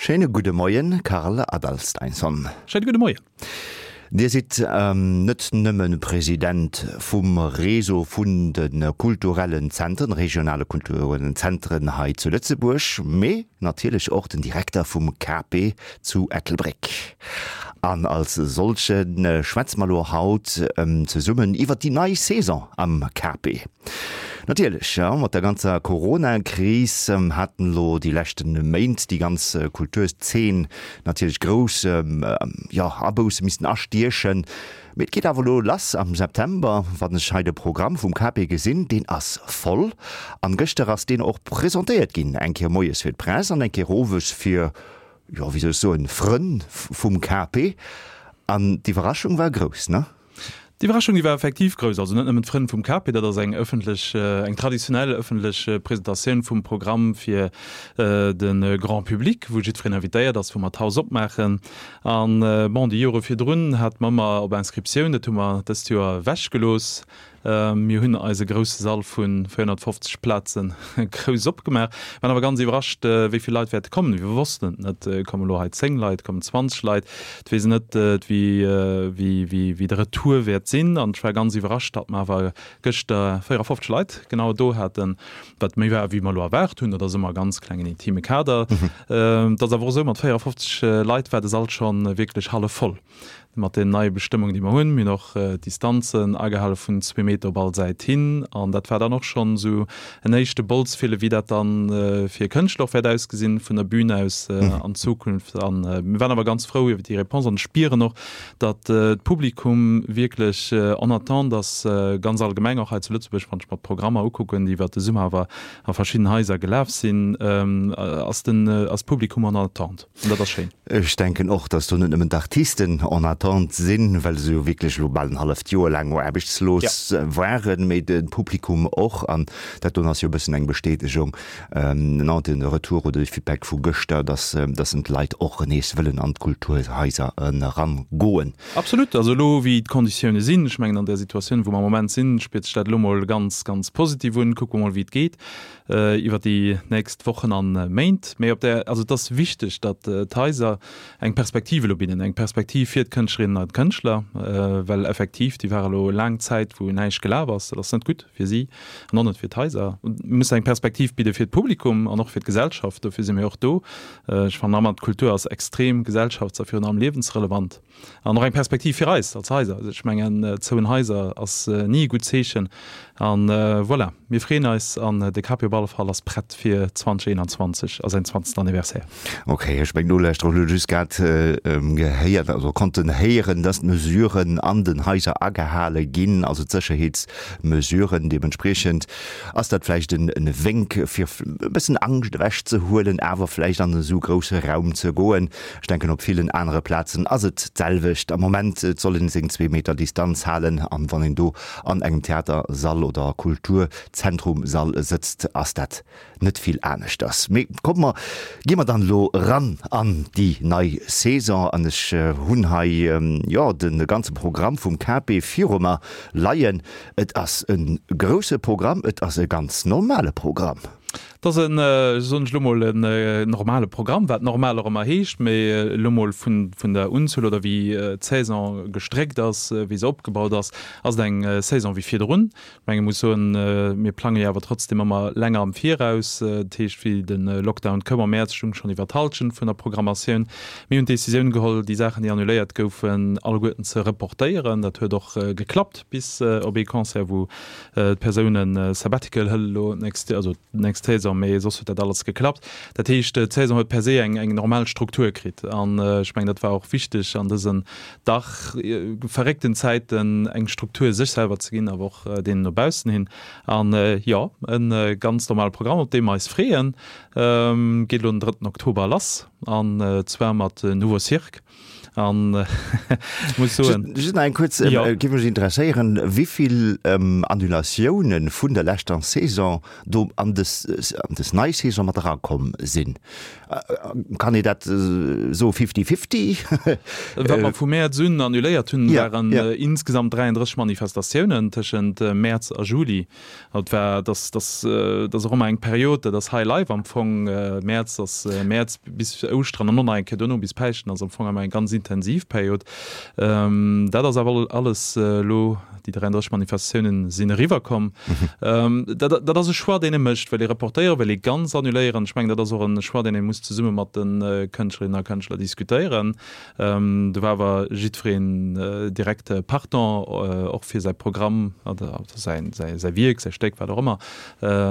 Schéine gudde Moien, Karl Adalsteinsson. Schéine gudde Moien. Dir sidd net nëmme President vum Réseau vun de kulturellen Zentren, regionale kulturellen Zentren hei zu Lëtzebuerg, mee natierlech och den Direkter vum KP zu Ettelbréck. An als solche schwätze mer elo haut zesummen iwwert déi nei Saison am KP. Natierlech, jo, mat der ganzer Corona-Kris haten elo déi leschte Méint déi ganz Kulturzeen natierlech grouss, jo, Abousse missten astiechen. Mee et geet awer elo lass am September. Wann ech hei de Programm vum KP gesinn, deen ass voll. An gëschter ass deen och presentéiert ginn, eng Kéier moies fir d'Press an eng Kéier owes fir, jo, wéi soll ech soen, Frënn vum KP. An d'Iwwerraschung war grouss, ne? D'Iwwerraschung, déi war effektiv grouss. Also net nëmmen d'Frënn vum KP, dat ass eng ëffentlech, eng traditionell ëffentlech Presentatioun vum Programm fir de Grand public, wou jiddwereen invitéiert ass, wou mer d'Haus opmaachen. An bon, déi Jore virdrun hate mer ëmmer op Inscriptioun, dat hu mer dëst Joer ewechgelooss. Mir hunn eise grousse Sall vu 450 Plaze grouss opgemaach, waren awer ganz iwwerrascht, wéi vill Leit wäerte kommen. Mir wossten et net. Kommen elo hei 10 Leit, kommen 20 Leit? Et weess een net, wéi de Retour wäert sinn. An ech war ganz iwwerrascht, datt mer awer gëschter 54 Leit genau do haten, wat méi war, wéi mer elo erwaart hunn. Dat ass ëmmer e ganz klengen intime Kader. Et ass awer och esou, mat 54 Leit war de Sall scho wierklech hallef voll. Mat den neie Bestëmmungen, déi mer hunn, mir hunn och d'Distanzen agehale vun zwee Meter op all Säit hin. An dat war dann och schonn esou en éischte Bolzfille, wéi dat dann fir Kënschtler och wäert ausgesinn vun der Bün aus an Zukunft. A mir waren awer ganz frou iwwer déi Réponse an spieren och, datt d'Publikum wierklech en attente ass, ganz allgemeng och hei zu Lëtzebuerg, wann ech mer d'Programmer ukucken, déi iwwer de Summer awer a verschidden Haiser gelaf sinn, ass den ass d'Publikum en attente. An dat ass schéin. Ech denken och, dass do net nëmmen d'Artisten en attente sinn, well se jo wierklech elo bal en halleft Joer laang aarbechtslos waren, mee de Publikum och. An dat doen ass jo e bëssen eng Bestätegung, non, de Retour oder de Feedback vu gëschter, dass, dass en d'Leit och nees wëllen an d'Kulturhaiser erangoen. Absolut. Also elo wéi d'Konditioune sinn, ech mengen an där Situatioun, wou mer am Moment sinn, spiert sech dat elo mol ganz, ganz positiv un. Kucke mer mol, wéi et geet. iwwer déi nächst Wochen an Méint. Mee op där, also et ass wichteg, datt d'Haiser eng Perspektiv elo bidden, eng Perspektiv fir d'Kënschtlerinnen an d'Kënschtler, well effektiv, déi ware elo laang Zäit, wou näischt gelaf ass. Dat ass net gutt fir si an och net fir d'Haiser. Mir mussen eng Perspektiv bidde fir d'Publikum an och fir d'Gesellschaft. Dofir si mir och do. Ech fannen ëmmer, d'Kultur ass extrem gesellschafts a virun allem liewensrelevant. An och eng Perspektiv fir eis als Haiser. Also ech mengen, zouen Haiser ass ni e gutt Zeechen. An voilà, mir freeën eis an de Capi op alle Fall ass prett fir 2021 a säin 20. Anniversaire. Ok, ech meng Nolauschterer hunn elo just grad gehéiert, also konnten héieren, dass d'Mesuren an den Haiser agehale ginn, also d'Sécherheetsmesuren. Deementspriechend ass dat vläicht en Wénk fir e bëssen Angscht ewechzehuelen, awer vläicht an esou grousse Raum ze goen. Ech denken op villen anere Plazen ass et d'selwecht am Moment. Et soll een seng zwee Meter Distanz halen an wann een do an engem Theatersall oder Kulturzentrumsall sëtzt, ass dat net vill aneschters. Mee komme mer, gi mer dann elo eran an déi nei Saison an ech hunn hei jo de ganze Programm vum KP viru mer leien. Et ass e grousse Programm, et ass e ganz normale Programm. Et ass en, soen ech elo mol, en normale Programm, wat normal och ëmmer heescht, mee elo mol vun der Unzuel oder wéi d'Saison gestréckt ass, wéi se opgebaut ass, ass et eng Saison wéi virdrun. Ech menge muss soen, mir plange jo awer trotzdem ëmmer länger am Viraus. Dat heescht, wéi de Lockdown koum am Mäerz, stung schonn iwwer d'Hallschent vun der Programmatioun. Mir hunn d'Decisioun geholl, déi Saachen, déi annuléiert goufen, alleguerten ze reportéieren. Dat huet och geklappt, bis op ee Concert, wou D'Persoun e Sabbatical hëlt elo d'nächst, also d'nächst Saison, mee soss huet dat alles geklappt. Dat heescht, d'Saison huet per se eng eng normal Struktur kritt an ech mengen, dat war och wichteg an dësen dach verréckten Zäiten, eng Struktur sech selwer ze ginn, awer och deenen no baussen hin. An jo, e ganz normale Programm, op dee mer eis freeën, geet elo den drëtten Oktober lass an zwar mat Nouveau Cirque. An muss soen. Just nach eng kuerz, géif mech interesséieren, wéivill Annulatiounen vun der leschter Saison do an des an des nei Saison mat erakomm sinn. Kann ee dat soe fifty-fifty? Wat mer vu Mäerz un annuléiert hunn, waren insgesamt 33 Manifestatiounen tëschent Mäerz a Juli. Et war, dass, dass, dat ass och ëmmer eng Period, dat ass High Life am Fong. Mäerz ass Mäerz bis Ouschteren an och nach eng Kéier duerno bis Päischten ass am Fong ëmmer eng ganz intensiv Period. Dat ass awer alles elo, déi 33 Manifestatiounen sinn eriwwer komm. Dat, dat ass e Choix, deen ee mécht. Wëll ee reportéieren, wëll ee ganz annuléieren? Ech mengen, dat ass och e Choix, deen ee muss zesumme mat de Kënschtlerinnen a Kënschtler diskutéieren. Do war awer jiddwereen direkt partant, och fir säi Programm oder säi Wierk, säi Stéck, wat och ëmmer,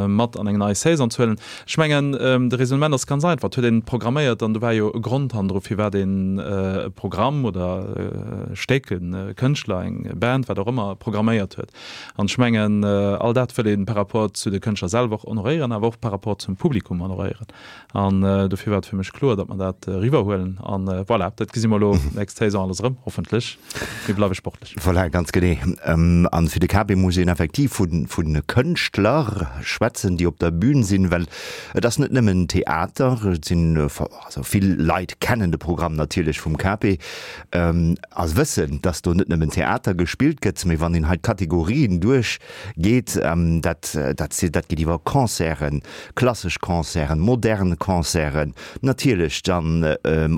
mat an eng nei Saison ze huelen. Ech mengen, de Raisonnement ass ganz einfach, Et huet een programméiert an do war jo e Grond hannendru, firwat een e Programm oder e Stéck, e Kënschtler, eng Band, wat och ëmmer, programméiert huet. An ech mengen, all dat wëll ee par rapport zu de Kënschtler selwer och honoréieren, awer och par rapport zum Publikum honoréieren. An dofir war et fir mech kloer, datt mer dat eriwwerhuelen. An voilà, dat gesi mer elo nächst Saison alles erëm, hoffentlech. Mir bleiwe sportlech. Voilà, ganz genee. An fir de KB muss een effektiv vu Kënschtler schwätzen, déi op der Bühn sinn, well et ass net nëmmen Theater. Et sinn, also vill Leit kennen de Programm natierlech vum KB a wëssen, datt do net nëmmen Theater gespillt gëtt, mee wann een hei d'Kategorien duerchgeet, dat, dat, dat geet iwwer Concerten, Klassesch Concerten, modern Concerten, natierlech dann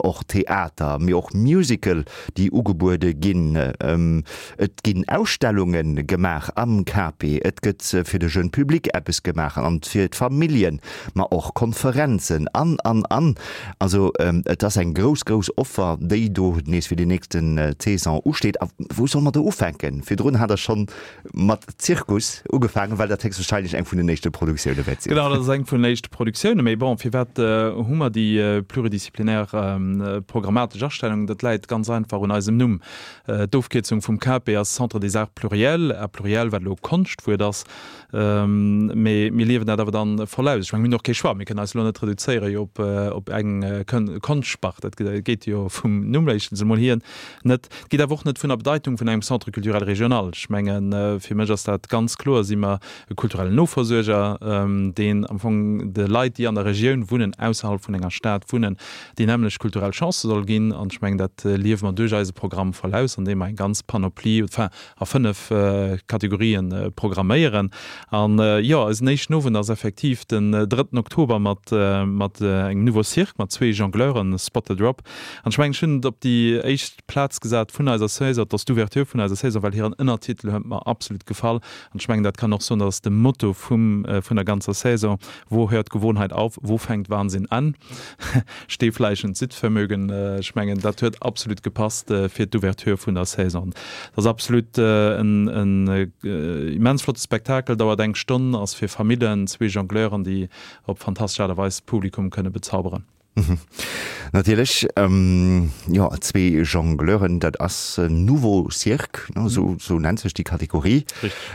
och Theater, mee och Musical, déi ugebuede ginn. Et ginn Ausstellunge gemaach am KP, et gëtt fir de jeune Public eppes gemaach an fir d'Familljen, ma och Konferenzen an, an, an. Also et ass eng grouss, grouss Offer, déi do nees fir déi nächste Saison usteet. A wou solle mer do ufänken? Virdrun hat Der schonn Mat Zirkus ugefaangen, well dat héchstwahrscheinlech eng vun den éischte Produktioune wäert sinn. Genau, dat ass eng vun den éischte Produktioune. Mee bon, firwat hu mer déi pluridisziplinaire programmatesch Astellung? Dat läit ganz einfach un eisem Numm. D'Ofkierzung vum CAPE ass Centre des Arts Pluriels, Arts Pluriels, wat elo e Konschtwuert ass. Mee mir liewen dat awer dann voll aus. Ech mengen, mir hunn och kee Choix. Mir kënnen eis elo net reduzéiere jo op eng Konschtspart. Dat geet jo vum Numm éischtens emol hier net. Et geet awer och net vun der Bedeitung vun engem Centre culturel régional. Ech mengen, fir mech ass dat ganz kloer, si mer e kulturellen Noversuerger, deen am Fong de Leit, déi an der Regioun wunnen, ausserhalb vun enger Stad wunnen, déi nämmlecht kulturell Chancë soll ginn. An ech mengen, dat liewe mer duerch eise Programm voll aus, andeem mer eng ganz Panoplie, enfin a 5 Kategorien programméieren. An jo, eisen éischten Owend ass effektiv den drëtten Oktober mat mat engem Nouveau Cirque, mat zwee Jongleuren, Spot the Drop. An ech mengen, ech hunn et op déi éischt Plaz gesat vun eiser Saison, et ass d'Ouverture vun eiser Saison, well hiren Ënnertitel huet mer absolut gefall. An ech mengen, dat kann och soen, dat ass de Motto vum, vun der ganzer Saison, Wo hört Gewohnheit auf, wo fängt Wahnsinn an? Stehfleisch und Sitzvermögen. Ech mengen, dat huet absolut gepasst fir d'Ouverture vun der Saison. Dat ass absolut en, en immens flotte Spektakel, dauert eng Stonn, ass fir Famillen, zwee Jongleuren, déi op fantastesch Aart a Weis d'Publikum kënne bezauberen. Natierlech, jo, zwee Jongleuren, dat ass Nouveau Cirque, esou esou nennt sech déi Kategorie.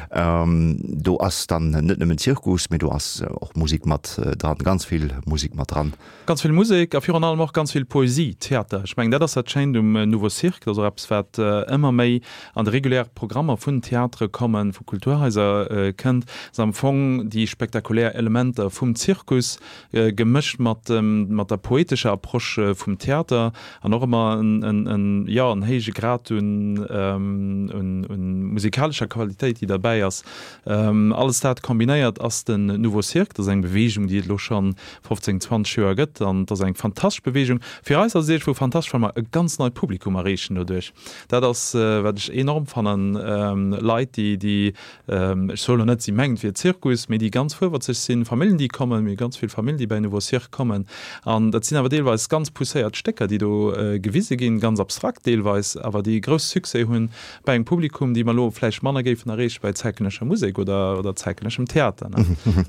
Do ass dann net nëmmen Zirkus, mee do ass och Musek mat dran, ganz vill Musek mat dran. Ganz vill Musek a virun allem och ganz vill Poesie, Theater. Ech mengen, dat ass dat Schéint um Nouveau Cirque. Dat ass och eppes, wat ëmmer méi an de reguläre Programmer vun Theatere kommen, vu Kulturhaiser kënnt, ass am Fong déi spektakulär Elementer vum Zirkus, gemëscht mat mat der poetescher Approche vum Theater an och ëmmer en jo en héije Grad un un musikalescher Qualitéit, déi derbäi ass. Alles dat kombinéiert ass den Nouveau Cirque. Dat ass eng Beweegung, déi et elo scho 15, 20 Joer gëtt an et ass eng fantastesch Beweegung. Fir eis ass et iergendwou fantastesch, well mer e ganz neit Publikum erreechen doduerch. Dat ass, wat ech enorm fannen, Leit, déi déi Ech soen elo net, si mengt wier Zirkus, mee déi ganz fuerwerzeg sinn, Familljen, déi kommen, mir hu ganz vill Familljen, déi bei Nouveau Cirque kommen. An dat sinn awer deelweis ganz pousséiert Stécker, déi do gewise ginn, ganz abstrakt deelweis, awer déi e grousse Succès hunn bei engem Publikum, déi mer elo vläicht manner géifen erreeche bei zäitgenëssescher Musek oder oder zäitgenësseschem Theater.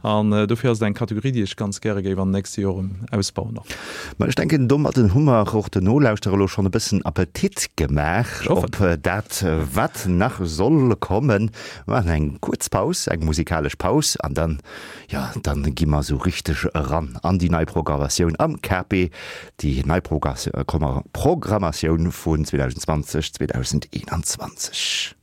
An dofir ass et eng Kategorie, déi ech ganz gäre géif an den nächste Joren ausbauen och. Ma ech denken, domadden hu mer och den Nolauschterer elo schonn e bëssen Appetit gemaach op dat, wat nach soll kommen. Mir maachen eng kuerz Paus, eng musikalesch Paus, an dann, jo, dann gi mer esou richteg eran an déi nei Programmatioun am. KP, déi nei Programmatioun vun 2020, 2021.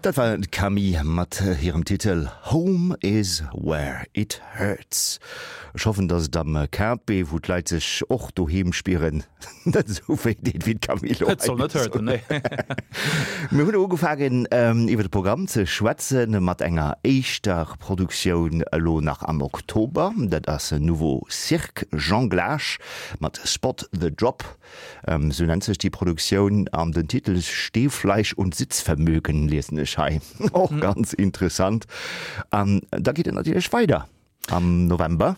Dat war d'Camille mat hirem Titel Home is where it hurts. Ech hoffen, dass et am KP, wou d'Leit sech och doheem spieren, net esou wéi deet wéi d'Camille elo hei. Et soll net hurten, nee. Mir hunn ugefaangen iwwer de Programm ze schwätzen mat enger éischter Produktioun elo nach am Oktober. Dat ass Nouveau Cirque Jonglage mat Spot the Drop. Sou nennt sech déi Produktioun an den Titel Stehfleisch und Sitzvermögen liesen ech hei. Och ganz interessant. An da geet et natierlech weider am November.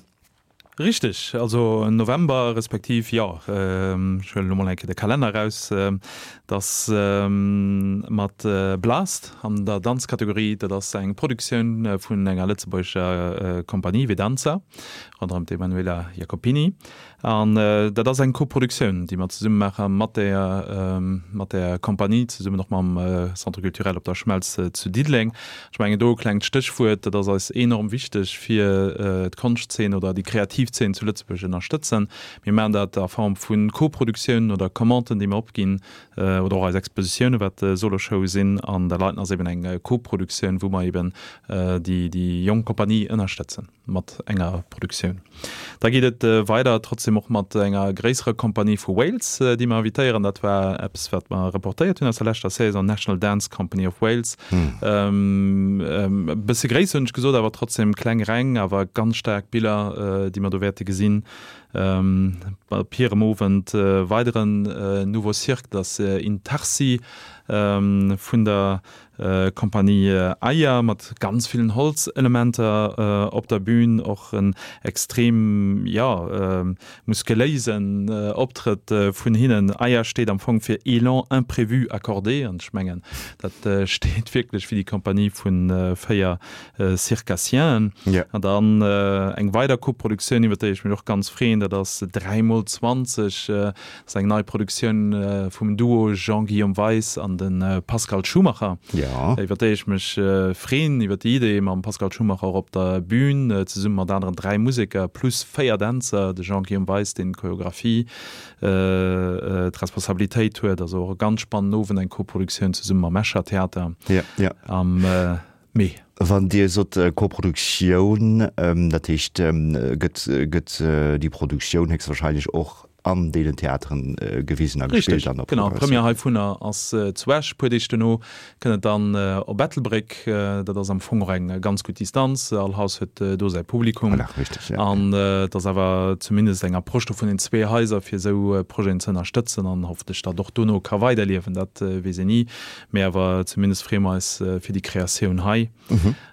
Richteg, also November respektiv, jo, ech huelen elo mol eng Kéier de Kalenner eraus, dass mat Blast an der Danzkategorie, dat ass eng Produktioun vun enger lëtzebuergescher Kompanie, Vedanza, ronderëm d'Emanuela Jacopini. An dat ass eng Koproduktioun, déi mer zesumme maache mat der, mat der Kompanie, zesummen och mam Centre culturel Op der Schmelz zu Diddeleng. Ech mengen, do e klengt Stéchwuert, dat ass eis enorm wichteg, fir d'Konschtzeen oder déi kreativ Zeen zu Lëtzebuerg ënnerstëtzen. Mir maachen dat a Form vu Koproduktiounen oder Commanden, déi mer opginn, oder och eis Expositiounen, wat Soloshowe sinn. An dat heiten ass eben eng Koproduktioun, wou mer eben déi jonk Kompanie ënnerstëtzen. Mat enger Produktioun. Da geet et weider trotzdem och mat enger gréisserer Kompanie vu Wales, déi mer invitéieren. Dat war eppes, wat mer reportéiert hunn aus der leschter Saison, National Dance Company of Wales. E bësse gréisser hunn ech gesot, awer trotzdem kleng Reng, awer ganz staark Biller, déi mer do. do wäerte gesinn op hirem Owend. Weideren Nouveau Cirque, dat ass Intarsi vun der Compagnie Aya mat ganz villen Holzelementer op der Bühn, och en extrem, jo, muskeléisen Optrëtt vun hinnen. Aya steet am Fong fir Élan imprévu accordé an ech mengen dat steet wierklech fir déi Compagnie vu 4 Circassienen. An dann eng weider Koproduktioun iwwer déi ech mech och ganz freeën, dat ass 3 mol 20. Dat ass eng nei Produktioun vum Duo Jean-Guillaume Weis an de Pascal Schumacher, iwwer déi ech mech freen, iwwer déi Idee mam Pascal Schumacher och op der Bühn, zesumme mat aneren 3 Museker plus 4 Dänzer, de Jean-Guillaume Weis, deen d'Choreographie, d'Responsabilitéit huet. Also och e ganz spannenden Owend, eng Koproduktioun zesumme mam Escher Theater am Mee. Wann Dir sot Koproduktioun, dat heescht, gëtt, gëtt déi Produktioun héchstwahrscheinlech och an deenen Theateren gewisen a gespillt an der Progressioun? Richtig, genau. D'Première heivunner ass zu Esch. E puer Deeg duerno kënnt et dann op Ettelbréck. Dat ass am Fong och eng ganz gutt Distanz. All Haus huet do säi Publikum. Voilà, richtig, ja. An et ass awer zumindest eng Approche do vun den zwee Haiser, fir esou Projeten ze ënnerstëtzen an hoffentlech datt och dono ka weiderliewen. Dat weess een ni. Mee awer zumindest freeë mer eis fir déi Kreatioun hei.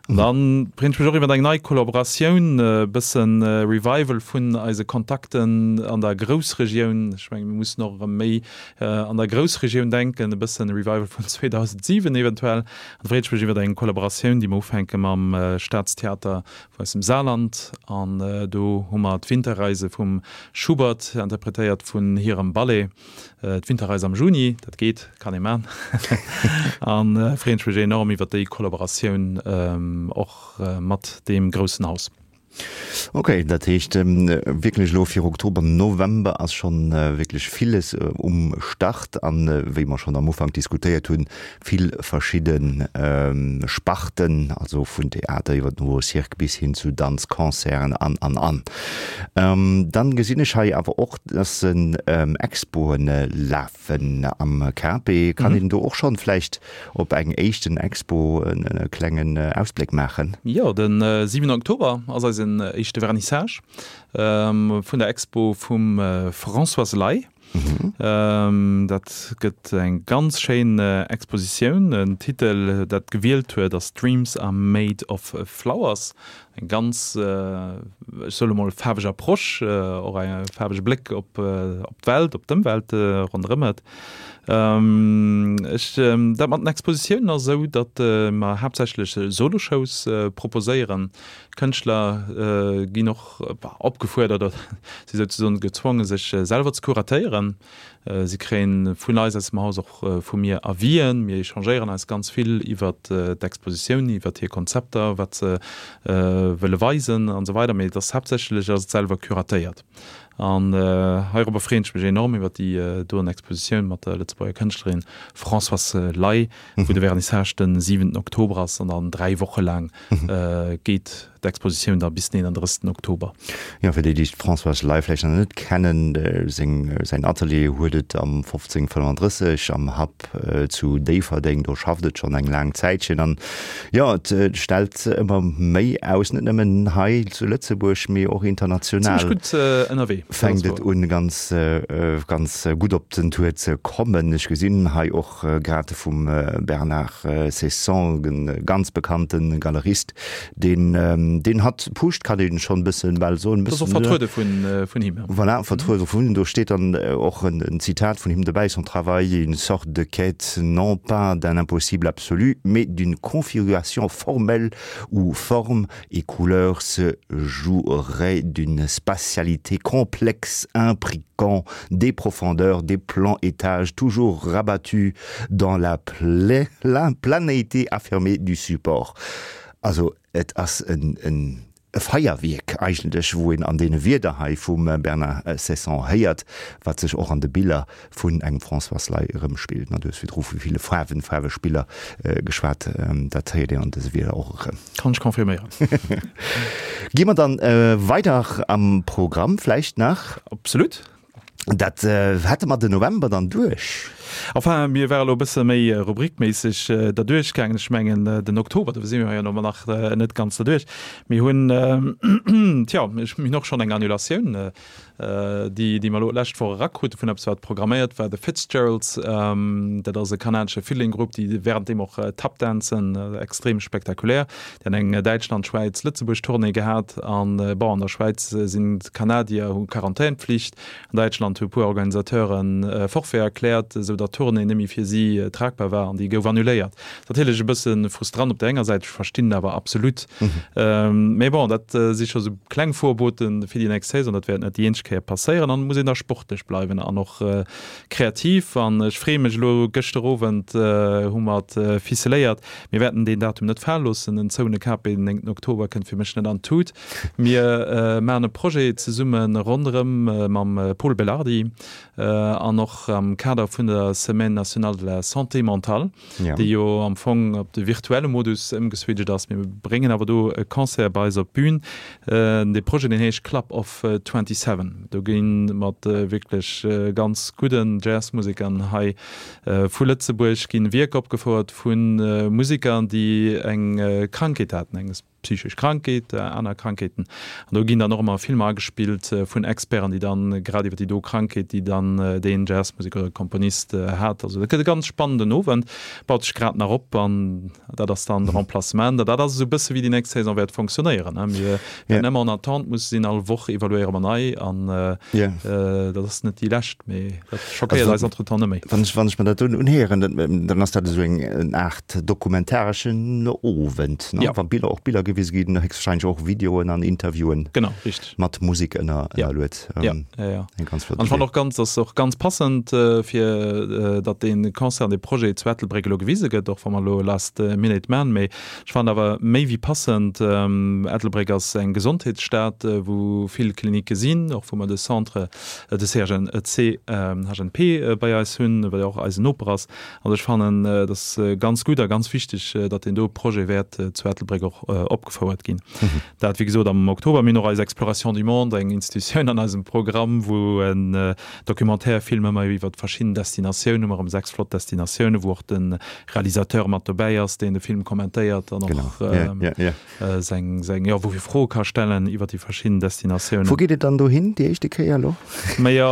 An dann freeën ech mech och iwwer eng nei Kollaboratioun, e bëssen Revival vun eise Kontakten an der Groussregioun. Ech mengen, mir mussen och erëm méi an der Groussregioun denken, e bëssen Revival vun 2007 eventuell. An da freeën ech mech iwwer eng Kollaboratioun, déi mer ufänke mam Staatstheater vun eisem Saarland. An do hu mer d'Winterreise vum Schubert, interpretéiert vun hirem Ballet. D'Winterreis am Juni, dat geet, kann ee man. An freeën ech mech enorm iwwer déi Kollaboratioun och mat deem groussen Haus. Ok, dat heescht wierklech elo fir Oktober, November ass schonn wierklech villes um Start an wéi mer schonn am Ufank diskutéiert hunn, vill verschidde Sparten, also vun Theater iwwer den Nouveau Cirque bis hin zu Danz, Concerten an, an, an. Dann gesinn ech hei awer och, dass Expoen lafen am KP. Kann een do och schonn vläicht op eng éischten Expo e klengen Ausbléck maachen? Jo, de 7 Oktober ass eisen éischte Vernissage vun der Expo vum Françoise Ley. Dat gëtt eng ganz schéin Expositioun. Den Titel, dat gewielt huet, ass Dreams are made of flowers. Eng ganz, ech soe lo mol, faarweg Approche, och e faarwege Bléck op d'Welt, op d'Ëmwelt ronderëm et. Ech, dat mat den Expositiounen ass esou, datt mer haaptsächlech Solo-Shows proposéieren. D'Kënschtler ginn och opgefuerdert oder si souzesoen gezwongen, sech selwer ze kuratéieren. Si kréien vun eis aus dem Haus, och vu mir, Avisen. Mir échangéieren eis ganz vill iwwert d'Expositioun, iwwert hir Konzepter, wat se wëlle weisen an esou weider. Mee et ass haaptsächlech ass et selwer kuratéiert. An heirobber freeën ech mech enorm iwwert déi doen Expositioun mat der Lëtzebuerger Kënschtlerin Françoise Ley, wou de Vernissage de 7 Oktober ass an dann 3 Woche laang geet d'Expositioun da bis den 31. Oktober. Jo, fir déi, déi d'Françoise Ley vläicht nach net kennen, seng, säin Atelier huet et am 1535 am Happ zu Déifferdeng. Do schafft et schonn eng laang Zäitchen an jo, et stellt ëmmer méi aus, net nëmmen hei zu Lëtzebuerg, mee och international. Zimmlech gutt ënnerwee. Fänkt et un, ganz, ganz gutt op den Tour ze kommen. Ech gesinn hei och grad vum Bernard Ceysson, e ganz bekannte Galerist, deen deen hatt pusht, kann een schonn e bëssen bal soen. Dat ass och vertruede vun him. Voilà, vertruede vun him. Do steet dann och en Zitat vun him dobäi, Son travail est une sorte de quête non pas d'un impossible absolu, mais d'une configuration formelle où forme et couleur se joueraient d'une spatialité complexe imbriquant des profondeurs, des plans étages toujours rabattus dans la planéité affirmée du support. Also et ass en e Feierwierk eigentlech, wou een an deene Wierder hei vum Bernard Ceysson héiert, wat sech och an de Biller vun engem Françoise Ley erëmspillt. Du hues virdru vu ville Faarwen, Faarwespiller geschwat, dat héiert een an dëse Wierder och erëm. Kann ech confirméieren. Gi mer dann weider am Programm vläicht nach? Absolut. Dat hätte mer den November dann duerch. Enfin, mir ware lo e bësse méi rubrikméisseg derduerch gaangen. Ech mengen, den Oktober, do si mir jo elo nach net ganz derduerch. Mir hunn, tja, mir hunn och schonn eng Annulatioun, déi, déi mer elo d'lescht Woch erakrute vun eppes, wat programméiert war, The Fitzgeralds. Dat ass e kanadesche Fiddling-Grupp, déi wärenddeem och Tap dancen, extrem spektakulär. Déi han eng Däitschland, Schwäiz, Lëtzebuerg-Tournée gehat. An, bon, an der Schwäiz sinn d'Kanadier, hu Quarantänpflicht. An Däitschland hu puer Organisateuren Forfait erkläert, esou datt d'Tournée net méi fir si tragbar war an déi gouf annuléiert. Natierlech e bësse frustrant op der enger Säit, ech verstinn et awer absolut. Mee bon, dat si scho sou kleng Vorbote fir déi nächst Saison. Dat wäert net déi eenzeg Kéier passéieren an et muss een da sportlech bleiwen an och kreativ. An ech freeë mech elo, gëschter Owend hu mer et ficeléiert, mir wäerten deen Datum net fale loossen, en zoune KP den 9 Oktober kënnt fir mech net an d'Tut. Mir maachen e Projet zesumme ronderëm mam Pol Belardi an och am Kader vun der Semaine nationale de la santé mentale, déi jo am Fong op de virtuelle Modus ëmgeswitcht ass. Mir bréngen awer do e Concert bei eis op d'Bün. Dee Projet, deen heescht Club of 27. Do gi mat wierklech ganz gudden Jazzmusekern hei vu Lëtzebuerg ginn Wierker opgefouert vu Museker, déi eng Krankheet haten, eng psychesch Krankheet, aner Krankheeten. An do ginn dann och ëmmer Filmer agespillt vun Experten, déi dann grad iwwer déi do Krankheet, déi dann deen Jazzmuseker oder Komponist hat. Also dat gëtt e ganz spannenden Owend, baut sech grad nach op an dat ass dann de Remplacement. An dat ass esou e bësse wéi déi nächst Saison wäert fonctionnéieren. Mir wäerten ëmmer en attente musse sinn, all Woch evaluéiere mer nei an dat ass net déi lescht, mee dat schockéiert eis entretemps net méi. Wann ech, wann ech mer dat do unhéieren, dann ass dat esou eng Aart dokumentareschen Owend, ne? Ja. Wa Biller, och Biller gewise ginn, héchstwahrscheinlech och Videoen an Interviewen. Genau, richteg. Mat Musek ënner, ënnerluet. Ja, ja, ja. Eng ganz flott Idee. An ech fannen och ganz, ass och ganz passend, fir datt dee Concert an dee Projet zu Ettelbréck elo gewise gëtt, och wa mer elo last minute man, mee ech fannen awer méi wéi passend. Ettelbréck ass eng Gesondheetsstad, wou vill Klinicke sinn, och wou mer de Centre, de CHN, CHNP bei eis hunn, wat jo och eisen Noper ass. Also ech fannen, et ass ganz gutt a ganz wichteg, datt deen do Projet wäert zu Ettelbréck och opgefouert ginn. Dat, wéi gesot, am Oktober. Mir hunn och eis Exploration du monde, eng Institutioun an eisem Programm, wou en Documentaire-Film ëmmer iwwer verschidden Destinatiounen, hu mer erëm 6 flott Destinatiounen, wou och de Realisateur mat dobäi ass, deen de Film kommentéiert an och seng, seng, jo, wou fir Froe ka stellen iwwer déi verschidden Destinatiounen. Wou geet et dann dohin déi éischte Kéier elo? Majo,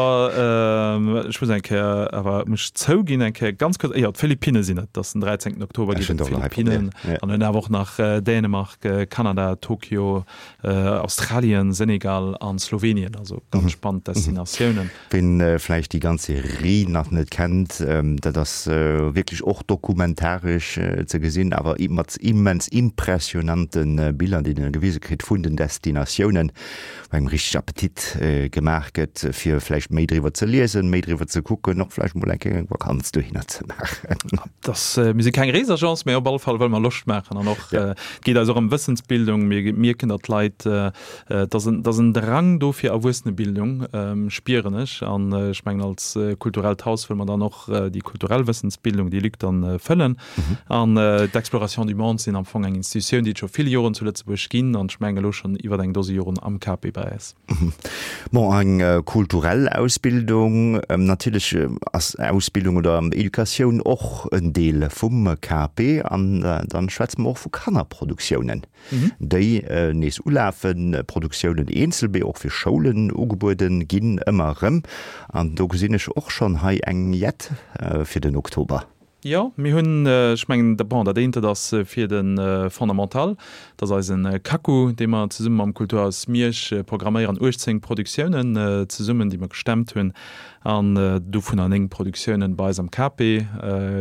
ech muss eng Kéier awer muss ech zouginn, eng Kéier ganz kuerz, jo, d'Philippinne sinn et, et ass den 13. Oktober geet et d'Philippinen an hunn awer och nach Dänemark, Kanada, Tokio, Australien, Senegal an Slowenien, also ganz spannend Destinatiounen. Ween vläicht déi ganz Serie nach net kennt, dat ass wierklech och dokumentaresch ze gesinn, awer mat immens impressionante Biller, déi een gewise kritt vun den Destinatiounen, wou engem richteg Appetit gemaach gëtt, fir vläicht méi driwwer ze liesen, méi driwwer ze kucken, och vläicht mol eng Kéier eng Vakanz dohinner ze maachen. Dass, mir si keng Reesagence, mä op alle Fall wëlle mer Loscht maachen an och, et geet eis och ëm Wëssensbildung. Mir mierken, datt d'Leit Et ass en, et ass en Drang do fir Erwuessenebildung, spieren ech. An ech mengen, als kulturellt Haus wëlle mer dann och déi kulturell Wëssensbildung, déi Lück dann fëllen. An d'Exploration du monde sinn am Fong eng Institutioun, déi et scho vill Joren zu Lëtzebuerg ginn an ech mengen elo schonn iwwer eng Dose Joren am KP bei eis. Bon, eng kulturell Ausbildung, natierlech ass Ausbildung oder Educatioun och en Deel vum KP. An dann schwätze mer och vu Kannerproduktiounen. déi nees ulafen, Produktiounen eenzel, mee och fir Schoulen ugebueden ginn ëmmer erëm. An do gesinn ech och schonn hei eng Jett fir den Oktober. Jo, mir hunn, ech mengen, bon, dat eent, dat ass fir de Fondamental, dat ass eisen Kaku, dee mer zesumme mam Kulturhaus Miersch programméieren, 18 Produktiounen zesummen, déi mer gestemmt hunn, an dovunner 9 Produktiounen bei eis am KP.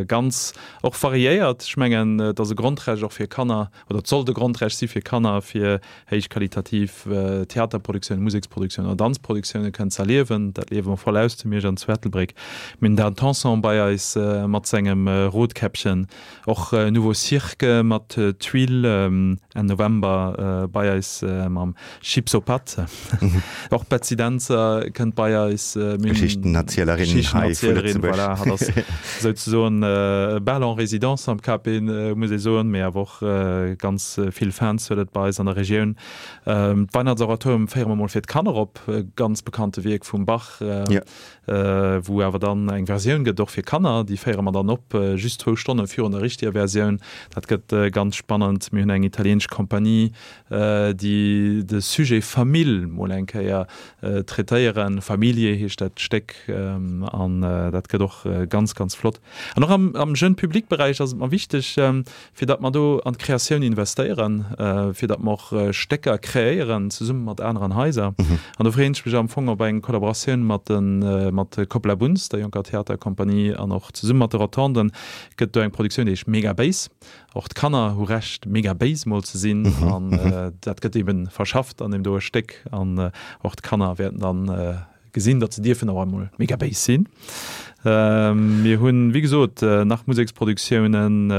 Ganz och variéiert. Ech mengen, et ass e Grondrecht och fir Kanner, oder et sollt e Grondrecht si fir Kanner, fir héichqualitativ Theaterproduktiounen, Museksproduktioune oder Danzproduktioune kënnen ze erliewen. Dat liewe mer voll aus zu Miersch an zu Ettelbréck. Mir hunn Dan Tanson bei eis mat sengem Rotkäppchen, och Nouveau Cirque mat Tuile Enn November bei eis mam Chips aux pâtes. Och d'Betsy Dentzer kënnt bei eis. Mir hunn. Geschichtenerzielerin hei vu Lëtzebuerg. Voilà, hatt ass souzesoen bal en résidence am KP, muss ee soen, mee awer och ganz vill Fans huet et bei eis an der Regioun. D'Weihnachtsoratorium féiere mer mol fir d'Kanner op, e ganz bekannte Wierk vum Bach, wou awer dann eng Versioun gëtt och fir Kanner. Déi féiere mer dann op just zwou Stonne virun der richteger Versioun. Dat gëtt ganz spannend. Mir hunn eng italieenesch Kompanie, déi de Sujet Famill mol eng Kéier traitéieren. Familie heescht dat Stéck an dat gëtt och ganz, ganz flott. An och am Jeune Public Beräich ass et mer wichteg, fir datt mer do an d'Kreatioun investéieren, fir datt mer och Stécker kreéieren zesumme mat aneren Haiser. An do freeën ech mech am Fong op eng Kollaboratioun mat de mat Copla Bunz, der jonker Theaterkompanie, an och zesumme mat de Rotonden gëtt do eng Produktioun, déi heescht Mega Béis. Och d'Kanner hu Recht, mega béis mol ze sinn, an dat gëtt eeben verschafft an deem doe Stéck. An och d'Kanner wäerten dann gesinn, datt se dierfen och emol mega béis sinn. Mir hunn, wéi gesot, nach Museksproduktiounen,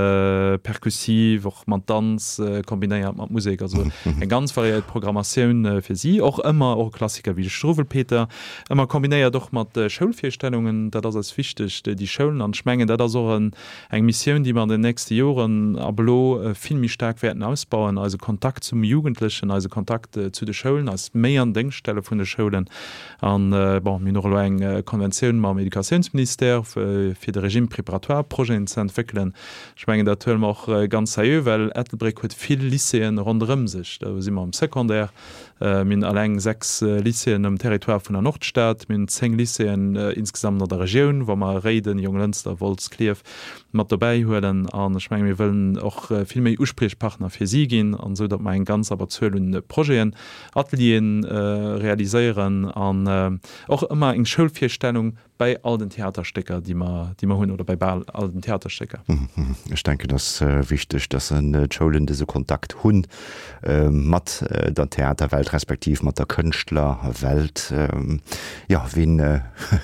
perkussiv, och mat Danz kombinéiert mat Musek, also eng ganz variéiert Programmatioun fir si. Och ëmmer och e Klassiker wéi de Struwwelpeter, ëmmer kombinéiert och mat Schoulvirstellungen. Dat ass eis wichteg, déi Schoulen. An ech mengen, dat ass och en, eng Missioun, déi mer an den nächste Joren ab elo vill méi staark wäerten ausbauen, eise Kontakt zum Jugendlechen, eise Kontakt zu de Schoulen, eis méi an Déngscht stelle vun de Schoulen. An, bon, mir hunn och elo eng Konventioun mam Educatiounsministère, fir de Régime préparatoire Projeten ze entwéckelen. Ech mengen, dat huele mer och ganz seriö, well Ettelbréck huet vill Lycéeën ronderëm sech. Do si mer am Secondaire. Mir hunn alleng 6 Lycéeën um Territoire vun der Nordstad. Mir hunn 10 Lycéeën insgesamt an der Regioun, wa mer Réiden, Jonglënster, Wolz, Klierf mat dobäi huelen. An ech menge mir wëllen och vill méi Uspriechpartner fir si ginn, an esou datt mer eng ganz Abberzuel un Projeten Atelieren realiséieren an och ëmmer eng Schoulvirstellung bäi all den Theaterstécker, déi mer, déi mer hunn, oder bäi bal all den Theaterstécker. Ech denken, et ass wichteg, dass d'Schoulen dëse Kontakt hu mat der Theaterwelt respektiv mat der Kënschtlerwelt. Jo, ween,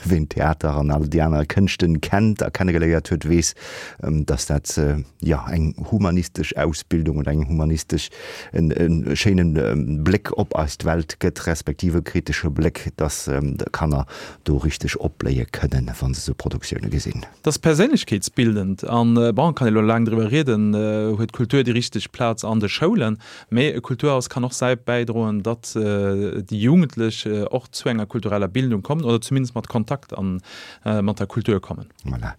ween Theater an all déi aner Kënschten kennt a kennegeléiert huet, weess, dass dat, jo, eng humanistesch Ausbildung oder eng humanistesch en schéinen Bléck op eist Welt gëtt, respektiv e kritesche Bléck, dass d'Kanner do richteg opbléie kënnen, wa se sou Produktioune gesinn. Dat ass perséinlechkeetsbildend an, bon, kann ee lo laang driwwer rieden, huet d'Kultur déi richteg Plaz an de Schoulen? Mee e Kulturhaus kann och säi bäidroen, datt déi Jugendlech och zu enger kultureller Bildung kommen oder zumindest mat Kontakt an mat der Kultur kommen. Voilà.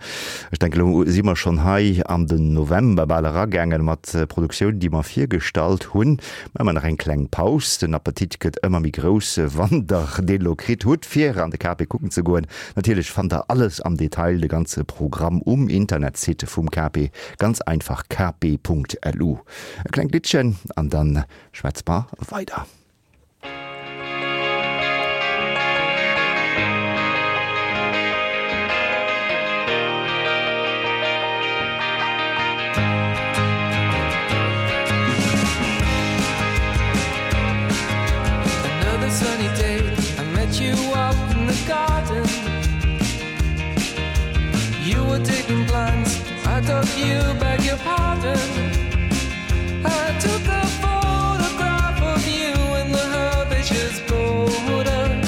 Ech denken, elo si mer schonn hei an den November bal eragaangen mat Produktioun, déi mer virgestallt hunn. Maache mer nach eng kleng Paus. Den Appetit gëtt ëmmer méi grouss, wann Der deen elo kritt hutt, fir an de KP kucken ze goen. Natierlech fannt Der alles am Detail, de ganze Programm um Internetsite vum KP, ganz einfach kp.lu. E klengt Liddchen an dann schwätze mer weider. Another sunny day, I met you up in the garden. You were digging plants, I dug you, beg your pardon. I took a photograph of you in the herbaceous border.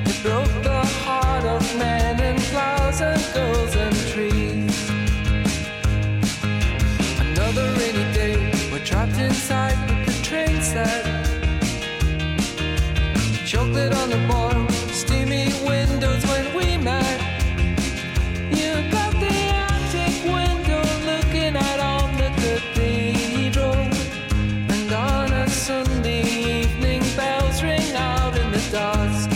It broke the heart of men and flowers and girls and trees. Another rainy day, we're trapped inside with the train set. Chocolate on the boil, steamy windows when we met. You got the attic window looking out on the cathedral. And on a Sunday evening, bells ring out in the dusk.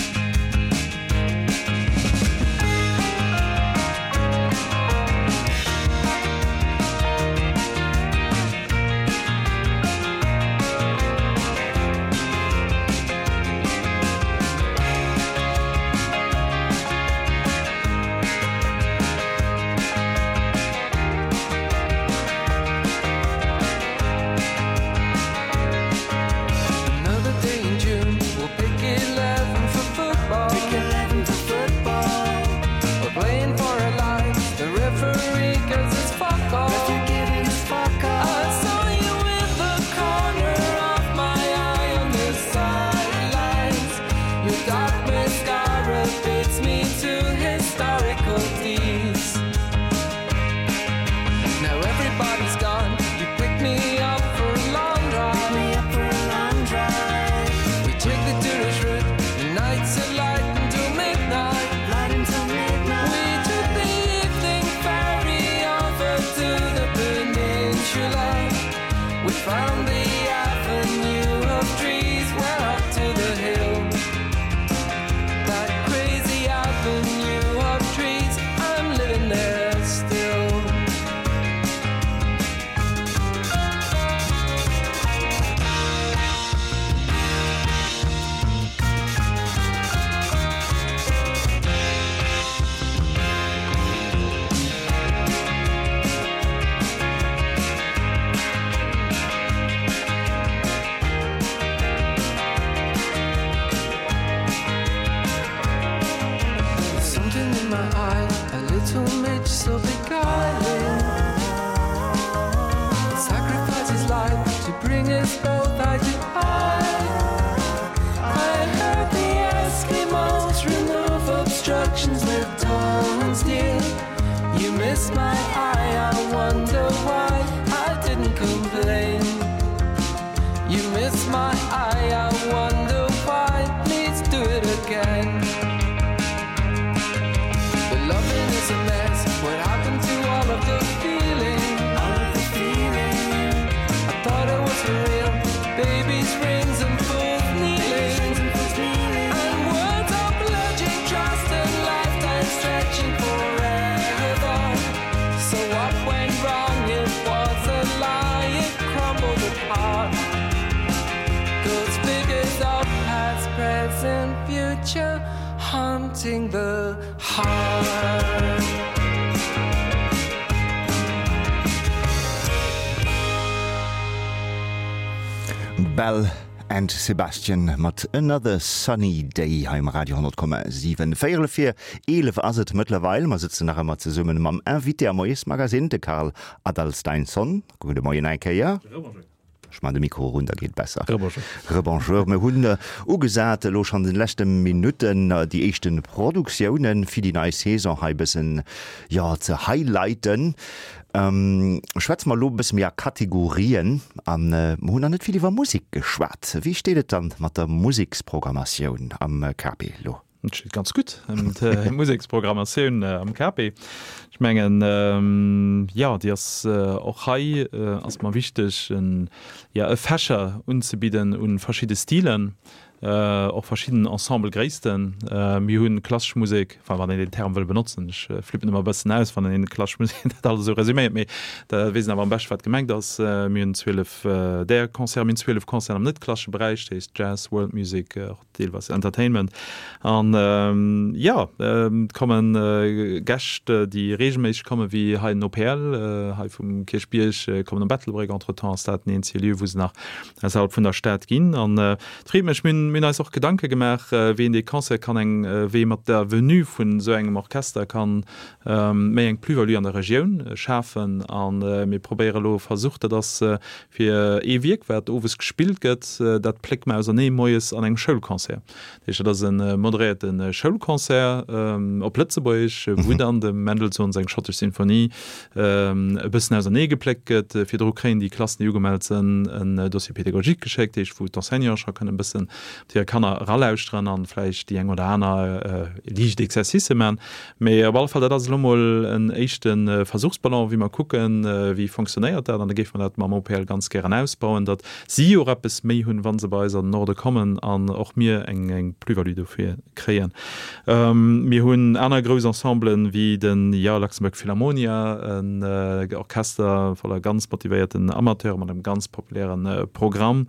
We found the avenue of trees, went up to the hill. That crazy avenue of trees, I'm living there still. Something in my eye, a little midge so beguiling Sacrifice his life to bring us both eye to eye I heard the Eskimos remove obstructions with tons dear You missed my eye, I wonder why I didn't complain You missed my eye, I wonder why Please do it again The loving is a mess What happened to all of the feeling? All of the feeling I thought it was for real Babies, rings and fools kneeling And words of pledging trust and lifetime stretching forever So what went wrong? It was a lie It crumbled apart Those figures of past, present, future Haunting the heart. Belle and Sebastian mat Another Sunny Day hei um Radio 10,7. Véierel vir 11 ass et mëttlerweil. Mer sëtzen nach ëmmer zesummen mam Invité am Moiesmagazine, de Karl Adalsteinsson. Gudde Moien eng Kéier. Ech man de Mikro erun, da geet besser. Rebonjour. Rebonjour. Mir hunn ugesat elo schonn an de leschte Minutten déi éischte Produktiounen fir déi nei Saison hei e bëssen, jo, ze highlighten. Schwätze mer elo e bësse méi a Kategorien an mer hunn nach net vill iwwer Musek geschwat. Wéi steet et dann mat der Museksprogrammatioun am KP elo? Et steet ganz gutt ëm d'Museksprogrammatioun am KP. Ech mengen, jo, déi ass och hei ass mer wichteg, en, jo, e Fächer unzebidden u verschidde Stilen, och verschidden Ensemblegréissten. Mir hu klassesch Musek, enfin wann een deen Term wëll benotzen, ech flippen ëmmer e bëssen aus, wann een klassesch Musek dat alles esou resuméiert, mee da weess een awer am beschte wat gemengt ass. Mir hunn 12 där Concerten, mir hunn 12 Concerten am net-klassesche Beräich, dat heescht Jazz, World Music, och deelweis Entertainment. An jo, et komme Gäscht, déi reegelméisseg kommen, wéi hei den OPL, hei vum Kierchbierg, kommen op Ettelbréck. Entretemps ass dat den eenzege Lieu, wou se nach ausserhalb vun der Stad ginn. An et freet mech, mir hunn eis och Gedanke gemaach, wéi een dee Concert kann eng, wéi ee mat der Venue vun esou engem Orchester kann méi eng Plus-value an der Regioun schafen. A mir probéiere elo e Versuch, dat ass Fir ee Wierk, wat owes gespillt gëtt, dat pléckt mer ausernee moies an engem Schoulconcert. Dat heescht, dat ass e moderéierte Schoulconcert op Lëtzebuergesch, wou dann dem Mendelssohn seng Schottesch Sinfonie e bëssen ausernee gepléckt gëtt. Virdru kréien déi Klassen, déi ugemellt sënn, en Dossier pédagogique geschéckt, dat heescht, wou d'Enseignanten scho kënnen e bëssen op hir Kanner eralauschteren an vläicht déi eng oder aner liicht Exercicë man. Mee op alle Fall, dat ass elo mol en éischte Versuchsballon, wéi mer kucken, wéi fonctionnéiert dat. An da géife mer dat mam OPL ganz gären ausbauen, datt si och eppes méi hunn, wa se bei eis an den Norde kommen an och mir eng Plus-value dofir kréien. Mir hunn aner grouss Ensemblen, wéi de jo, Luxembourg Philharmonia, en Orchester voller ganz motivéierten Amateure mat engem ganz populäre Programm.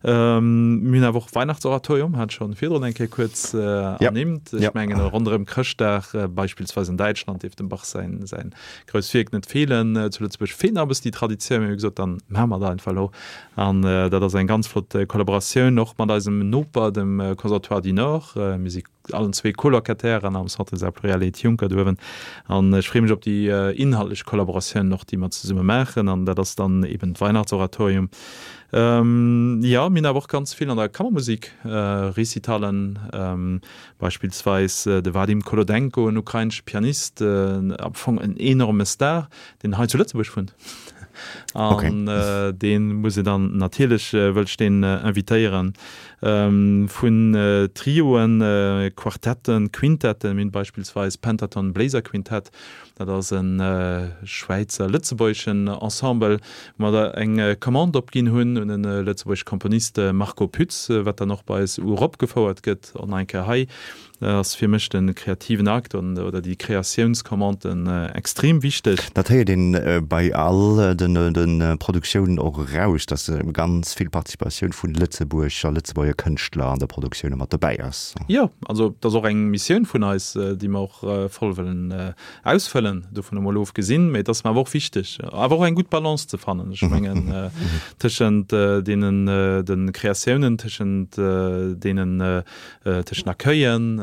Mir hunn awer och Weihnachtsoratorium, hat schonn virdrun eng Kéier kuerz ernimmt. Ech mengen ronderëm Chrëschtdag, beispillsweis an Däitschland, dierf dem Bach säin säin grousst Wierk net feelen. Zu Lëtzebuerg feelt nach e bëssen déi Traditioun, mee mir hu gesot, dann maache mer dat einfach elo. An dat ass eng ganz flott Kollaboratioun och mat eisem Noper, dem Conservatoire du Nord. Mir si allen zwee Colocatairen am Centre des Arts Pluriels Ed Juncker do uewen. An ech freeë mech op déi inhaltlech Kollaboratiounen och, déi mer zesumme maachen. An dat ass dann eben d'Weihnachtsoratorium. Jo, mir hunn awer och ganz vill an der Kammermusik, Recitallen, beispillsweis de Vadim Kolodenko, en ukrainesche Pianist, am Fong en enorme Star, deen hei zu Lëtzebuerg wunnt. An dee muss een dann natierlech, wëll ech deen invitéieren. Vun Trioen, Quartetten, Quintetten, mir hunn beispillsweis Pentaton Bléiser Quintett, dat ass e schwäizer-lëtzebuergeschen Ensemble, wou mer eng Commande opginn hunn un e lëtzebuergesche Komponist, Marco Pütz, wat dann och bei eis uropgefouert gëtt. Och nach eng Kéier hei ass fir mech de kreativen Akt oder déi Kreatiounscommanden extrem wichteg. Dat héiert een bei all de Produktiounen och eraus, dass ganz vill Participatioun vu Lëtzebuerg a Lëtzebuerger Kënschtler an der Produktioun mat dobäi ass. Jo, also dat ass och eng Missioun vun eis, déi mer och voll wëllen ausfëllen, dovun emol ofgesinn. Mee et ass mer awer och wichteg, awer och eng gutt Balance ze fannen, ech mengen, tëschent deenen de Kreatiounen, tëschent deenen tëschent Accueillen,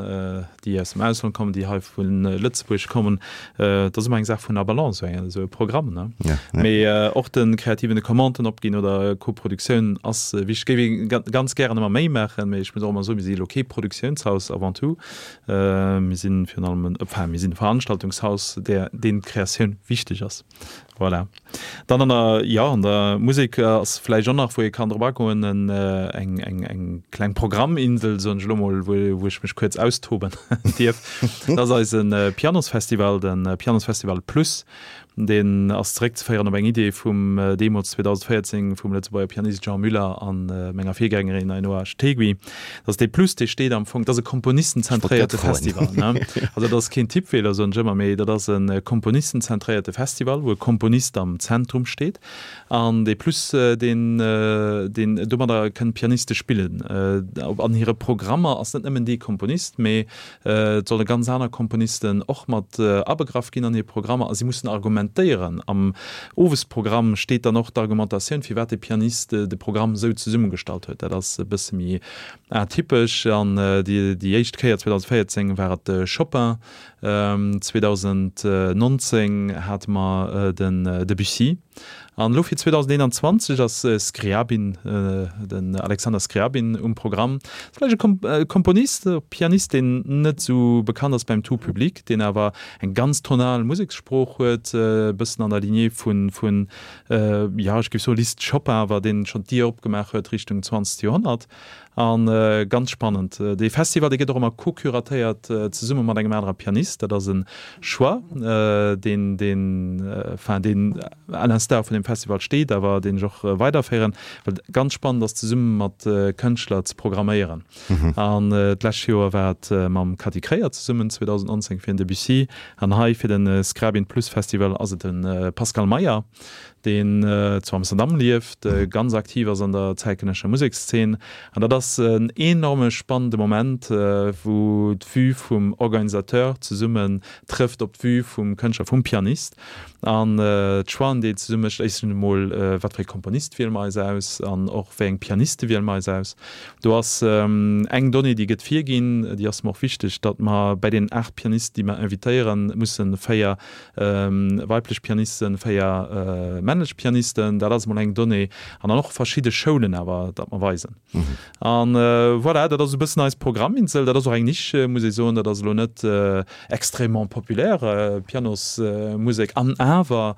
déi aus dem Ausland kommen, déi hei vu Lëtzebuerg kommen. Dat ass ëmmer eng Saach vun der Balance, esou e Programm, ne? Mee och de kreativen, de Commanden opginn oder Koproduktioun ass wichteg. Géif ee ganz gären ëmmer méi maachen, mee ech muss och ëmmer soen, mir si elo kee Produktiounshaus avant tout. Mir si virun allem en, enfin, mir sinn e Veranstaltungshaus, där, deem d'Kreatioun wichteg ass. Voilà. Dann an der, jo, an der Musek ass vläicht och nach, wou ee kann drop agoen, en, eng, eng, eng kleng Programminsel, soen ech elo mol, wou, wou ech mech kuerz austoben dierf. Dat ass eise Pianosfestival, de Pianosfestival Plus. Deen ass zeréckzeféieren op eng Idee vum deemools 2014 vum Lëtzebuerger Pianist Jean Muller a menger Virgängerin Ainhoa Stegui. Dat ass dee Plus, dee steet am Fong, dat ass e komponistenzentréierte Festival. Also dat ass keen Tippfeeler, soen ech ëmmer, mee dat ass e komponistenzentréierte Festival, wou e Komponist am Zentrum steet. An dee Plus, deen, deen domadder kënnen d'Pianiste spillen. An hire Programmer ass net nëmmen dee Komponist, mee Et solle ganz aner Komponisten och mat abegraff ginn an hir Programmer a si mussen argumentéieren. Am Owesprogramm steet dann och d'Argumentatioun, firwat de Pianist de Programm esou zesummegestallt huet. Dat ass e bësse méi atypesch. An déi éischt Kéier 2014 war et de Chopin, 2019 hate mer den Debussy. An elo fir 2021 ass Scriabin, den Alexander Scriabin um Programm. Ass vläicht e Komponist, e Pianist, deen net esou bekannt ass beim tout public, deen awer eng ganz tonal Musekssprooch huet, e bëssen an der Lignée vun, vun, jo, ech géif soe Liszt, Chopin, awer deen schonn d'Dier opgemaach huet Richtung zwanzegt Joerhonnert. A ganz spannend, dee Festival, dee gëtt och ëmmer co-curatéiert zesumme mat engem anere Pianist. Dat ass e Choix, deen, deen, enfin, deen à l'instar vun deem Festival steet, awer deen ech och weiderféieren, well et ganz spannend ass, zesumme mat Kënschtler ze programméieren. An d'lescht Joer war et mam Cathy Kreyer zesummen, 2019 fir den Debussy, an hei fir de Skrabin Plus Festival ass et de Pascal Meyer. deen zu Amsterdam lieft, ganz aktiv ass an der zäitgenëssescher Musekszeen. An dat ass en enorme spannende Moment, wou d'Vue vum Organisateur zesummen trëfft op d'Vue vum Kënschtler, vum Pianist. An d'Choixen, déi een zesumme mécht, éischtens emol, wat fir ee Komponist wiele mer eis aus an och wéi eng Pianiste wiele mer eis aus. Do ass eng Donnée, déi gëtt virginn, déi ass mer och wichteg, datt mer bäi deenen 8 Pianisten, déi mer invitéieren, musse 4 weiblech Pianisten, 4 männlech Pianisten, dat ass emol eng Donnée, an dann och verschidde Schoulen awer, dat mer weisen. An voilà, dat ass e bëssen eis Programminsel. Dat ass och eng Nisch, muss ee soen, dat ass elo net extrêmement populaire, Pianosmusek, an awer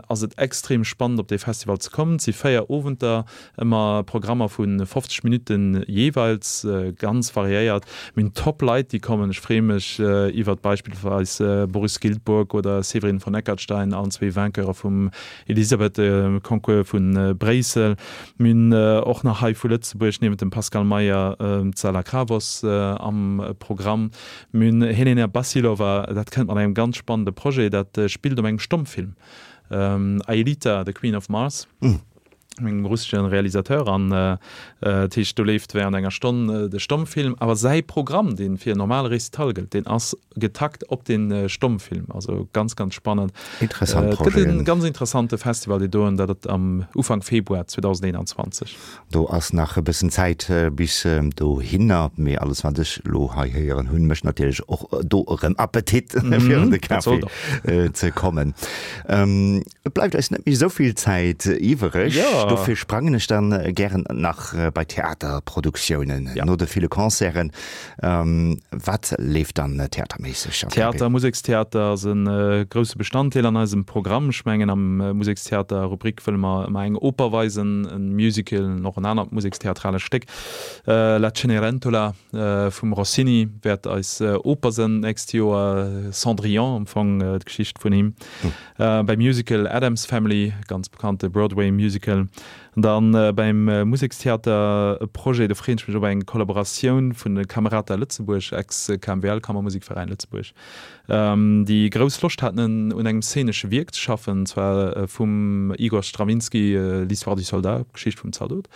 ass et extrem spannend op dee Festival ze kommen. Et si 4 Owenter, Ëmmer Programmer vu 50 Minutten jeeweils, ganz variéiert. Mir hunn top Leit déi kommen. Ech freeë mech iwwert beispillsweis Boris Giltburg oder Séverine von Eckartstein, allen zwee Vainqueure vum Elisabeth-Concours vu Bréissel. Mir hunn och nach hei vu Lëtzebuerg niewent dem Pascal Meyer d'Sala Kravos am Programm. Mir hunn Helena Bassilova, dat kënnt mat engem ganz spannende Projet, dat spillt op engem Stommfilm, Aelita, the Queen of Mars. Mengem russeschen Realisateur an dat heescht do leeft während enger Stonn de Stommfilm, awer säi Programm deen fir en normale Récital gëllt, deen ass getakt op den Stommfilm, also ganz ganz spannend. Interessant Et gëtt en ganz interessante Festival dee doen, dat et am Ufank Februar 2021. Do ass nach e bëssen Zäit bis dohinner, mee alles wat ech elo hei héieren hunn, mécht natierlech och do erëm Appetit fir an de Café ze kommen. Et bleift eis net méi esou vill Zäit iwwereg. Dofir sprangen ech dann gären nach bei Theaterproduktiounen, no de ville Concerten. Wat leeft dann theaterméisseg am KP? Theater, Musekstheater ass e grousse Bestanddeel an eisem Programm. Ech mengen am Musekstheater-Rubrik wëlle mer ëmmer eng Oper weisen, e Musical an och en anert musekstheatralescht Stéck. La Cenerentola vum Rossini wäert eis Oper sënn d'nächst Joer, Cendrillon am Fong d'Geschicht vun him. Beim Musical Addams Family, ganz bekannte Broadway-Musical. An dann beim Musekstheater e Projet, do freeën ech mech op eng Kollaboratioun vun de Camerata Lëtzebuerg, ex-KMVL, Kammermusikveräin Lëtzebuerg, déi grouss Loscht haten un engem szenesche Wierk ze schaffen, an zwar vum Igor Strawinsky L'histoire du soldat, d'Geschicht vum Zaldot.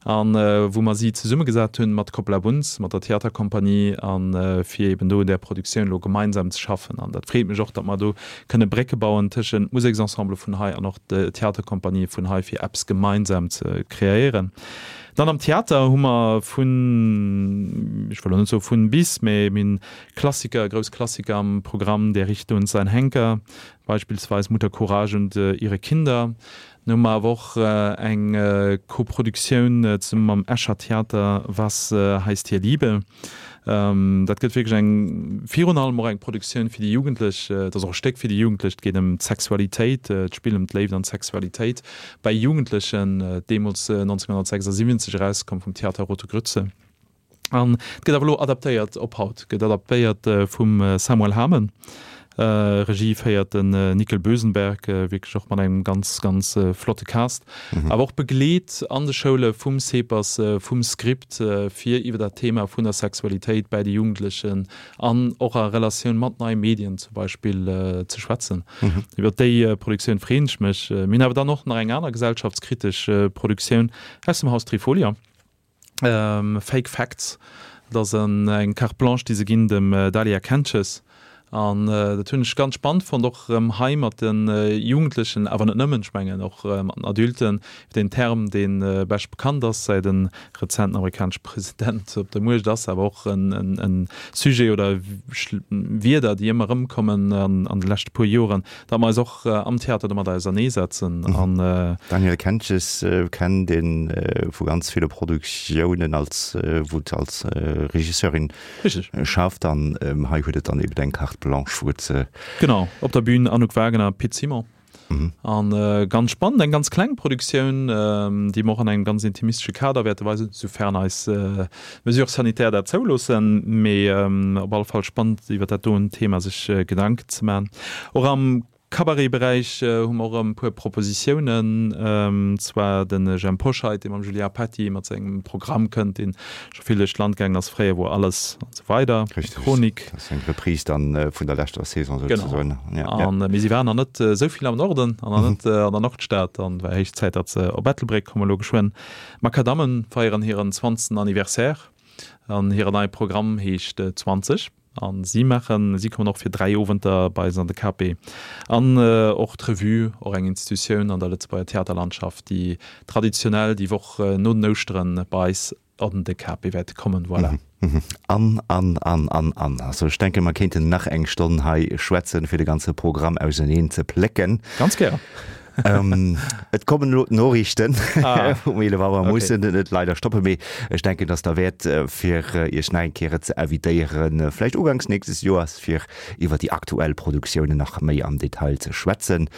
An wou mer si zesummegesat hunn mat Coppola Bunz, mat der Theaterkompanie, a fir eben do un där Produktioun elo gemeinsam ze schaffen. An dat freet mech och, datt mer do kënne Brécke bauen tëschent Museksensemble vun hei an och de Theaterkompanië vun hei, fir eppes gemeinsam ze kreéieren. Dann am Theater hu mer vun, ech wëll elo net soe vun bis, mä mir hunn Klassiker, grouss Klassiker am Programm, Der Richter und sein Henker, beispillsweis Mutter Courage und ihre Kinder. Mir hu mer awer och eng Koproduktioun zesumme mam Escher Theater, Was heißt hier Liebe? Dat gëtt wierklech eng, virun allem och eng Produktioun fir déi Jugendlech. Et ass och e Stéck fir déi Jugendlech. Et geet ëm d'Sexualitéit, d'Spill ëm d'Léift an d'Sexualitéit bei Jugendlechen, deemools 1976 erauskomm vum Theater Rote Grütze. An et gëtt awer elo adaptéiert op haut, gëtt adaptéiert vum Samuel Hamen. Regie féiert den Nickel Bösenberg, wierklech och mat engem ganz, ganz flotte Cast. Awer och begleet an de Schoule vum CEPAS, vum Script, fir iwwer dat Thema vun der Sexualitéit bäi de Jugendlechen an och a Relatioun mat neie Medien zum Beispill ze schwätzen. Iwwer déi Produktioun freeën ech mech. Mir hunn awer dann och nach eng aner gesellschaftskritesch Produktioun aus dem Haus Trifolia. Fake Facts, dat ass eng Carte Blanche, déi se ginn dem Dalia Kentges. An dat hunn ech ganz spannend fonnt, och erëm hei mat de Jugendlechen, awer net nëmmen, ech mengen och mat den Adulten, iwwer deen Term, dee bescht bekannt ass, säit e rezenten amerikanesche President op der Muecht ass, awer och e Sujet oder Wierder, déi ëmmer erëmkommen an de leschte puer Joren, datt mer eis och am Theater domat auserneesetzen an. D'Danièle Kentges kennt ee vu ganz ville Produktiounen als, wou se als Regisseurin schafft an hei huet et dann eben eng Carte blanche, wou et se. Genau, op der Bühn Anouk Wagener, Pit Simon. An ganz spannend, eng ganz kleng Produktioun, déi mer och an engem ganz intimistesche Kader wäerte weisen, soufern eis Mesures sanitaires dat zouloossen. Mee op alle Fall spannend, iwwer dat doen Thema sech Gedanken ze maachen. Och am Cabaret-Beräich hu mer och erëm e puer Propositiounen, zwar de Jhemp Hoscheit, dee mam Julien Petty mat sengem Programm kënnt, deen scho vill duerch d'Land gaangen ass, Fréier wor alles an esou weider, Richtig, Chronik. Dat ass eng Reprise dann vun der leschter Saison souzesoen. Genau. An mee si waren nach net esou vill am Norden an nach net an der Nordstad an war héich Zäit, datt se op Ettelbréck kommen elo geschwënn. D'Makadammen feieren hiren zwanzegsten Anniversaire an hiren neie Programm heescht 20 an si maachen, si kommen och fir 3 Owenter bei eis an de KP. An och d'Revue, och eng Institutioun an der Lëtzebuerger Theaterlandschaft, déi traditionell déi Woch no den Ouschteren bei eis an de KP wäerte kommen. Voilà. An, an, an, an, an. Also ech denken, mer kéinten nach eng Stonn hei schwätzen, fir de ganze Programm auseneen ze plécken. Ganz gär. Et kommen elo d'Noriichten um 11 Auer, okay. Mussen et leider stoppen, mee ech denken, dass derwäert, fir Iech nach eng Kéier ze invitéieren, vläicht uganks nächstes Joers, fir iwwer déi aktuell Produktiounen nach méi am Detail ze schwätzen.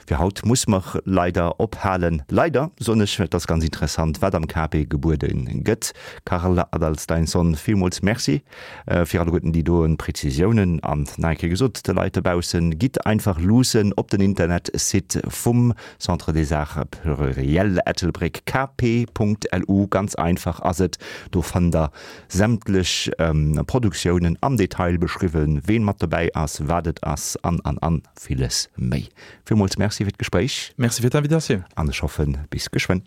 Fir haut muss mer leider ophalen. Leider, soen ech, et ass ganz interessant, wat am KP gebuede gëtt. Karl Adalsteinsson, villmools Merci fir alleguerten déi doen Präzisiounen. An nach eng Kéier gesot, de Leit dobaussen, gitt einfach luussen op den Internetsite vum Centre des Arts Pluriels Ettelbréck, kp.lu, ganz einfach ass et, do fannt der sämtlech Produktiounen am Detail beschriwwen, ween mat dobäi ass, wat et ass an, an, an villes méi. Villmools Merci fir d'Gespréich. Merci fir d'Invitatioun. An ech hoffen, bis geschwënn.